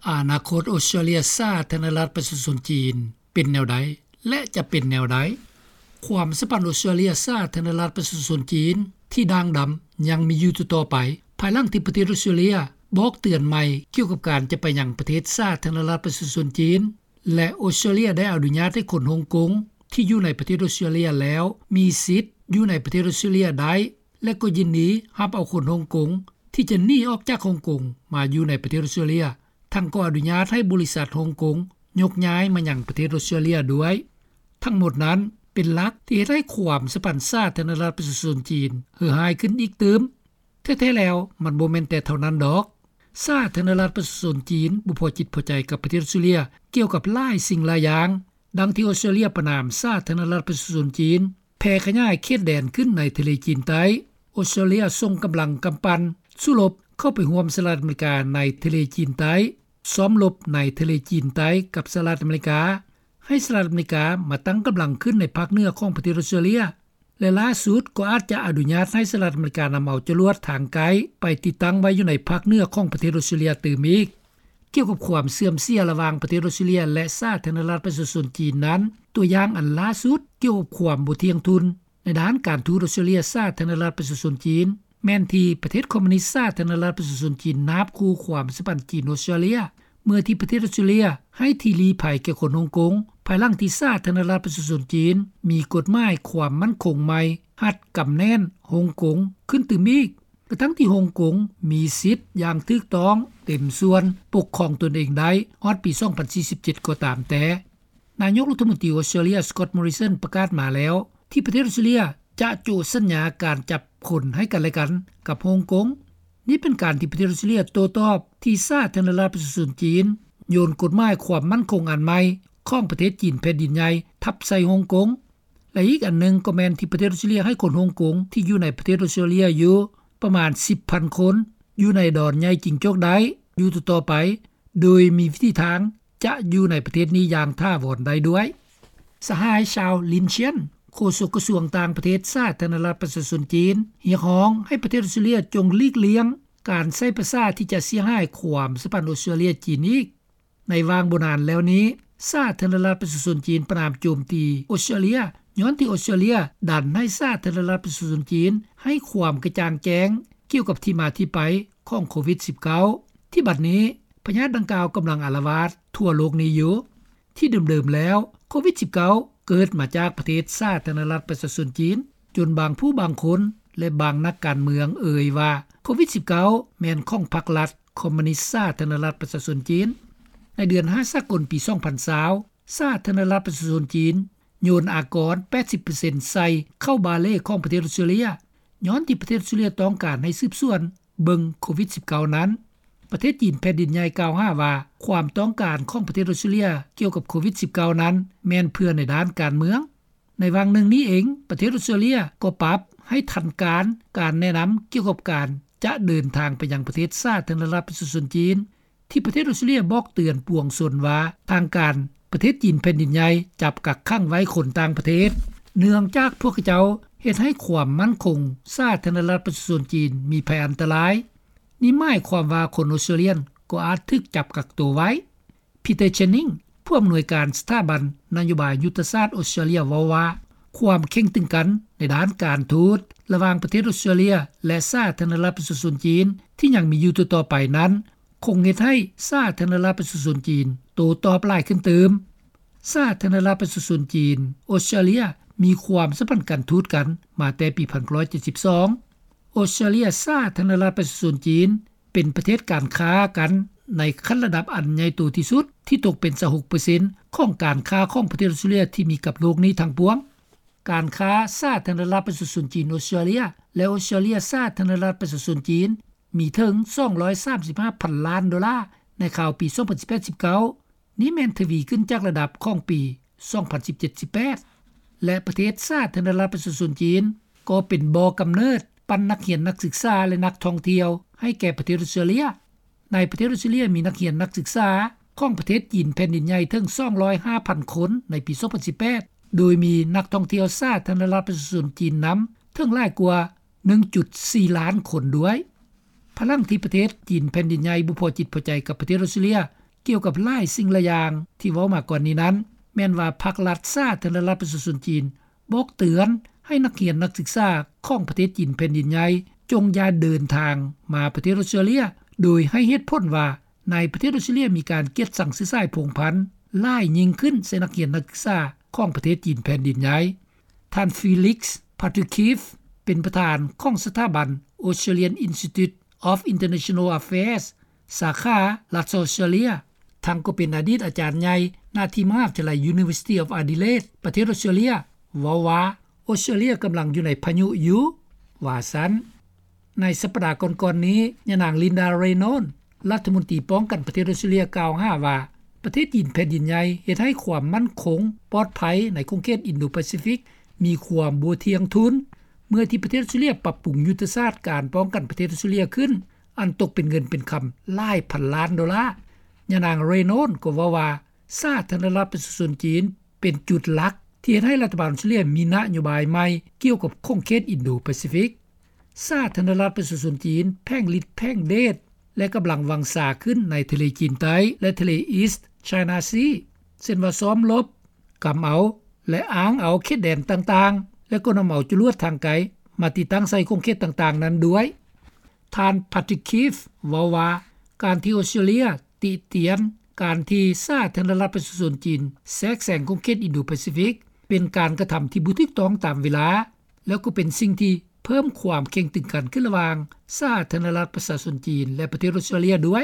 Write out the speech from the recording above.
ອະນາຄົດອອສເຕຣເລັຽ ສາທາລະນະລັດປະຊາຊົນຈີນ ເປັນແນວໃດ ແລະ ຈະເປັນແນວໃດ? ຄວາມສຳພັນອອສເຕຣເລັຽ ສາທາລະນະລັດປະຊາຊົນຈີນ ທີ່ດ່າງດຳ ຍັງມີຢູ່ຕໍ່ໆໄປ ພາຍຫຼັງທີ່ປະເທດອອສເຕຣເລັຽ ບອກເຕືອນໃໝ່ກ່ຽວກັບການຈະໄປຍັງປະເທດສາທາລະນະລັດປະຊາຊົນຈີນ ແລະ ອອສເຕຣເລັຽໄດ້ອະນຸຍາດໃຫ້ຄົນຮົງກົງ ທີ່ຢູ່ໃນປະເທດອອສເຕຣເລັຽແລ້ວ ມີສິດຢູ່ໃນປະເທດອອສເຕຣເລັຽໄດ້ ແລະ ກໍຍິນດີຮັບເອົາຄົນຮົງກົງ ທີ່ຈະໜີອອກຈາກຮົງກົງ ມາຢູ່ໃນປະເທດອອສເຕຣເລັຽ, ທັງກໍອະນຸຍາດໃຫ້ບໍລິສັດຮົງກົງ ຍົກຍ້າຍມາຍັງປະເທດອອສເຕຣເລັຽດ້ວຍ. ທັງໝົດນັ້ນເປັນຫຼັກທີ່ເຮັດໃຫ້ຄວາມສຳພັນສາທາລະນະລັດປະຊາຊົນຈີນ ເຫື່ອຫາຍຂຶ້ນອີກຕື່ມ. ແທ້ໆແລ້ວ ມັນບໍ່ແມ່ນແຕ່ເທົ່ານັ້ນດອກ. ສາທາລະນະລັດປະຊາຊົນຈີນ ບໍ່ພໍຈິດພໍໃຈກັບປະເທດອອສເຕຣເລັຽ ກ່ຽວກັບຫຼາຍສິ່ງຫຼາຍຢ່າງ. ດັ່ງທີ່ອອສເຕຣເລັຽປະນາມສາທາລະນະລັດປະຊາຊົນຈີນ ແຜ່ຂະຫຍາຍເຂດແດນຂຶ້ນໃນທະເລຈີນໃຕ້. ອອສເຕຣເລັຽສົ່ງກຳລັງກຳປັ່ນສູ້ລົບເຂົ້າໄປຮ່ວມສະຫະລັດອາເມລິກາໃນທະເລຈີນໃຕ້, ຊ້ອມລົບໃນທະເລຈີນໃຕ້ກັບສະຫະລັດອາເມລິກາ, ໃຫ້ສະຫະລັດອາເມລິກາມາຕັ້ງກຳລັງຂຶ້ນໃນພາກເໜືອຂອງປະເທດອອສເຕຣເລັຽ ແລະ ຫຼ້າສຸດກໍອາດຈະອະນຸຍາດໃຫ້ສະຫະລັດອາເມລິການຳເອົາຈະຫຼວດທາງໄກໄປຕິດຕັ້ງໄວ້ຢູ່ໃນພາກເໜືອຂອງປະເທດອອສເຕຣເລັຽຕື່ມອີກ. ກ່ຽວກັບຄວາມເສື່ອມເສຍລະຫວ່າງປະເທດອອສເຕຣເລັຽ ແລະ ສາທາລະນະລັດປະຊາຊົນຈີນນັ້ນ, ຕົວຢ່າງອັນລ່າສຸດກ່ຽວກັບຄວາມບໍ່ທ່ຽງທຸ່ນໃນດ້ານການທູດອອສເຕຣເລັຽ ສາທາລະນະລັດປະຊາຊົນຈີນ ແມ່ນທີ່ປະເທດຄອມມູນິດສາທາລະນະລັດປະຊາຊົນຈີນ ນາບຂູ່ຄວາມສຳພັນຈີນ-ອອສເຕຣເລັຍ ເມື່ອທີ່ປະເທດອອສເຕຣເລັຽໃຫ້ທີ່ລີ້ໄພແກ່ຄົນຮົງກົງ ພາຍຫຼັງທີ່ສາທາລະນະລັດປະຊາຊົນຈີນ ມີກົດໝາຍຄວາມໝັ້ນຄົງໃໝ່ ຮັດກຳແໜ້ນຮົງກົງຂຶ້ນຕື່ມອີກ ກະທັ້ງທີ່ຮົງກົງມີສິດຢ່າງຖືກຕ້ອງເຕັມສ່ວນປົກຄອງຕົນເອງໄດ້ຮອດປີສອງພັນສີ່ສິບເຈັດກໍຕາມແຕ່. ນາຍົກລັດຖະມົນຕີອອສເຕຣເລັຽ ສະກອດ ມໍຣິສັນ ປະກາດມາແລ້ວ ທີ່ປະເທດອອສເຕຣເລັຽຈະໂຈະສັນຍາການຈັບຄົນໃຫ້ກັນແລະກັນກັບຮົງກົງ. ນີ້ເປັນການທີ່ປະເທດອອສເຕຣເລັຽໂຕ້ຕອບທີ່ສາທາລະນະລັດປະຊາຊົນຈີນໂຍນກົດໝາຍຄວາມໝັ້ນຄົງອັນໃໝ່ຂອງປະເທດຈີນແຜ່ນດິນໃຫຍ່ທັບໃສ່ຮົງກົງ ແລະ ອີກອັນໜຶ່ງກໍແມ່ນທີ່ປະເທດອອສເຕຣເລັຽໃຫ້ຄົນຮົງກົງທີ່ຢູ່ໃນປະເທດອອສເຕຣເລັຽຢູ່ປະມານສິບພັນຄົນ ຢູ່ໃນດອນໃຫຍ່ຈິງຈົກໄດ້ຢູ່ຕໍ່ໆໄປ ໂດຍມີວິທີທາງຈະຢູ່ໃນປະເທດນີ້ຢ່າງຖາວອນໄດ້ດ້ວຍ. ສະຫາຍ ຊາວ ລິນຊຽນ ໂຄສົກກະຊວງຕ່າງປະເທດສາທາລະນະລັດປະຊາຊົນຈີນ ຮຽກຮ້ອງໃຫ້ປະເທດອອສເຕຣເລັຽຈົ່ງຫຼີກລ່ຽງການໃຊ້ພາສາທີ່ຈະເສຍຫາຍຄວາມສຳພັນອອສເຕຣເລັຽ-ຈີນອີກ. ໃນຫວ່າງບໍ່ນານແລ້ວນີ້ ສາທາລະນະລັດປະຊາຊົນຈີນປະນາມໂຈມຕີອອສເຕຣເລັຽ ຍ້ອນທີ່ອອສເຕຣເລັຽດັນໃຫ້ສາທາລະນະລັດປະຊາຊົນຈີນໃຫ້ຄວາມກະຈ່າງແຈ້ງກ່ຽວກັບທີ່ມາທີ່ໄປຂອງໂຄວິດສິບເກົ້າ ທີ່ບັດນີ້ພະຍາດດັ່ງກ່າວກຳລັງອາລະວາດທົ່ວໂລກນີ້ຢູ່. ທີ່ເດີມໆແລ້ວ ໂຄວິດສິບເກົ້າເກີດມາຈາກປະເທດສາທາລະນະລັດປະຊາຊົນຈີນ ຈົນບາງຜູ້ບາງຄົນ ແລະ ບາງນັກການເມືອງເອີ່ຍວ່າ ໂຄວິດສິບເກົ້າແມ່ນຂອງພັກລັດຄອມມູນິດສາທາລະນະລັດປະຊາຊົນຈີນ. ໃນເດືອນຫ້າສາກົນປີສອງພັນຊາວ ສາທາລະນະລັດປະຊາຊົນຈີນໂຍນອາກອນແປດສິບເປີເຊັນໃສ່ເຂົ້າບາເລຂອງປະເທດອອສເຕຣເລັຽ ຍ້ອນທີ່ປະເທດອອສເຕຣເລັຽຕ້ອງການໃຫ້ສືບສວນເບິ່ງໂຄວິດສິບເກົ້ານັ້ນ. ປະເທດຈີນແຜ່ນດິນໃຫຍ່ກ່າວຫາວ່າ ຄວາມຕ້ອງການຂອງປະເທດອອສເຕຣເລັຽກ່ຽວກັບໂຄວິດສິບເກົ້ານັ້ນ ແມ່ນເພື່ອໃນດ້ານການເມືອງ. ໃນຫວ່າງໜຶ່ງນີ້ເອງ ປະເທດອອສເຕຣເລັຽກໍປັບໃຫ້ທັນການ ການແນະນຳກ່ຽວກັບການຈະເດີນທາງໄປຍັງປະເທດສາທາລະນະລັດປະຊາຊົນຈີນ ທີ່ປະເທດອອສເຕຣເລັຽບອກເຕືອນປວງຊົນວ່າ ທາງການປະເທດຈີນແຜ່ນດິນໃຫຍ່ຈັບກັກຂັງໄວ້ຄົນຕ່າງປະເທດ ເນື່ອງຈາກພວກເຂົາເຈົ້າເຮັດໃຫ້ຄວາມໝັ້ນຄົງສາທາລະນະລັດປະຊາຊົນຈີນມີໄພອັນຕະລາຍ. ນີ້ໝາຍຄວາມວ່າຄົນອອສເຕຣເລັຽກໍອາດຖືກຈັບກັກໂຕໄວ້. ພີເຕີ ເຈນນິງ ຜູ້ອຳນວຍການສະຖາບັນນະໂຍບາຍຍຸດທະສາດອອສເຕຣເລັຽເວົ້າວ່າ ຄວາມເຄັ່ງຕຶງກັນໃນດ້ານການທູດລະຫວ່າງປະເທດອອສເຕຣເລັຽ ແລະ ສາທາລະນະລັດປະຊາຊົນຈີນທີ່ຍັງມີຢູ່ຕໍ່ໆໄປນັ້ນ ຄົງເຮັດໃຫ້ສາທາລະນະລັດປະຊາຊົນຈີນໂຕ້ຕອບຫຼາຍຂຶ້ນຕື່ມ. ສາທາລະນະລັດປະຊາຊົນຈີນ ອອສເຕຣເລັຽ ມີຄວາມສຳພັນການທູດກັນມາແຕ່ປີພັນເກົ້າຮ້ອຍເຈັດສິບສອງ. ອອສເຕຣເລັຽ ສາທາລະນະລັດປະຊາຊົນຈີນ ເປັນປະເທດການຄ້າກັນໃນຂັ້ນລະດັບອັນໃຫຍ່ໂຕທີ່ສຸດ ທີ່ຕົກເປັນຊາວຫົກເປີເຊັນຂອງການຄ້າຂອງປະເທດອອສເຕຣເລັຽທີ່ມີກັບໂລກນີ້ທັງປວງ. ການຄ້າສາທາລະນະລັດປະຊາຊົນຈີນ ອອສເຕຣເລັຽ ແລະ ອອສເຕຣເລັຽ ສາທາລະນະລັດປະຊາຊົນຈີນ ມີເຖິງສອງຮ້ອຍສາມສິບຫ້າພັນລ້ານໂດລາໃນຄາວປີສອງພັນສິບແປດ ສິບເກົ້າ ນີ້ແມ່ນທະວີຂຶ້ນຈາກລະດັບຂອງປີສອງພັນສິບເຈັດ ສິບແປດ ແລະ ປະເທດສາທາລະນະລັດປະຊາຊົນຈີນ ກໍເປັນບໍ່ກຳເນີດປັນນັກຮຽນນັກສຶກສາ ແລະ ນັກທ່ອງທ່ຽວໃຫ້ແກ່ປະເທດອອສເຕຣເລັຽ. ໃນປະເທດອອສເຕຣເລັຽມີນັກຮຽນນັກສຶກສາຂອງປະເທດຈີນແຜ່ນດິນໃຫຍ່ເຖິງສອງຮ້ອຍຫ້າພັນຄົນໃນປີສອງພັນສິບແປດ ໂດຍມີນັກທ່ອງທ່ຽວສາທາລະນະລັດປະຊາຊົນຈີນນຳເຖິງຫຼາຍກວ່າໜຶ່ງຈຸດສີ່ລ້ານຄົນດ້ວຍ. ພາຍຫຼັງທີ່ປະເທດຈີນແຜ່ນດິນໃຫຍ່ບໍ່ພໍຈິດພໍໃຈກັບປະເທດອອສເຕຣເລັຽ ກ່ຽວກັບຫຼາຍສິ່ງຫຼາຍຢ່າງທີ່ເວົ້າມາກ່ອນນີ້ນັ້ນ ແມ່ນວ່າພັກລັດສາທາລະນະລັດປະຊາຊົນຈີນ ບອກເຕືອນໃຫ້ນັກຮຽນນັກສຶກສາຂອງປະເທດຈີນແຜ່ນດິນໃຫຍ່ ຈົ່ງຢ່າເດີນທາງມາປະເທດອອສເຕຣເລັຽ ໂດຍໃຫ້ເຫດຜົນວ່າ ໃນປະເທດອອສເຕຣເລັຽມີການກຽດຊັງເຊື້ອສາຍພົງພັນຫຼາຍຍິ່ງຂຶ້ນໃສ່ນັກຮຽນນັກສຶກສາຂອງປະເທດຈີນແຜ່ນດິນໃຫຍ່. ທ່ານ Felix Patukhiv ເປັນປະທານຂອງສະຖາບັນ Australian Institute of International Affairs ສາຂາລັດສະອອສເຕຣເລັຽ ທັງກໍເປັນອະດີດອາຈານໃຫຍ່ໜ້າທີ່ມະຫາວິທະຍາໄລ University of Adelaide ປະເທດອອສເຕຣເລັຽ ເວົ້າວ່າ ອອສເຕຣເລັຽກຳລັງຢູ່ໃນພາຍຸຢູ່ ວ່າຊັ້ນ. ໃນສັບປະດາກ່ອນໆນີ້ ຍານາງ Linda Raynon ລັດຖະມົນຕີປ້ອງກັນປະເທດອອສເຕຣເລັຽ ກ່າວຫາວ່າ ປະເທດຈີນແຜ່ນດິນໃຫຍ່ເຮັດໃຫ້ຄວາມໝັ້ນຄົງປອດໄພໃນຂົງເຂດອິນໂດປາຊີຟິກ ມີຄວາມບໍ່ທ່ຽງທຸນ ເມື່ອທີ່ປະເທດອອສເຕຣເລັຽປັບປຸງຍຸດທະສາດການປ້ອງກັນປະເທດອອສເຕຣເລັຽຂຶ້ນ ອັນຕົກເປັນເງິນເປັນຄຳຫຼາຍພັນລ້ານໂດລາ. ຍານາງ Raynon ກໍເວົ້າວ່າ ສາທາລະນະລັດປະຊາຊົນຈີນ ເປັນຈຸດຫຼັກທີ່ເຮັດໃຫ້ລັດຖະບານອອສເຕຣເລັຽມີນະໂຍບາຍໃໝ່ກ່ຽວກັບຂົງເຂດອິນໂດປາຊີຟິກ. ສາທາລະນະລັດປະຊາຊົນຈີນ ແຜງລິດແຜງເດດ ແລະ ກຳລັງວັງຊາຂຶ້ນໃນທະເລຈີນໃຕ້ ແລະ ທະເລ East China Sea ເຊັ່ນວ່າຊ້ອມລົບ, ກຳເອົາ ແລະ ອ້າງເອົາເຂດແດນຕ່າງໆ ແລະ ກໍນຳເອົາຈະລວດທາງໄກມາຕິດຕັ້ງໃສ່ຂົງເຂດຕ່າງໆນັ້ນດ້ວຍ. ທ່ານ Patrick Keefe ເວົ້າວ່າ ການທີ່ອອສເຕຣເລັຽຕິຕຽນການທີ່ສາທາລະນະລັດປະຊາຊົນຈີນແຊກແຊງຂົງເຂດອິນໂດປາຊີຟິກ ເປັນການກະທຳທີ່ບໍ່ຖືກຕ້ອງຕາມເວລາ ແລ້ວກໍເປັນສິ່ງທີ່ເພີ່ມຄວາມເຄັ່ງຕຶງກັນຂຶ້ນລະຫວ່າງສາທາລະນະລັດປະຊາຊົນຈີນ ແລະ ປະເທດອອສເຕຣເລັຽດ້ວຍ.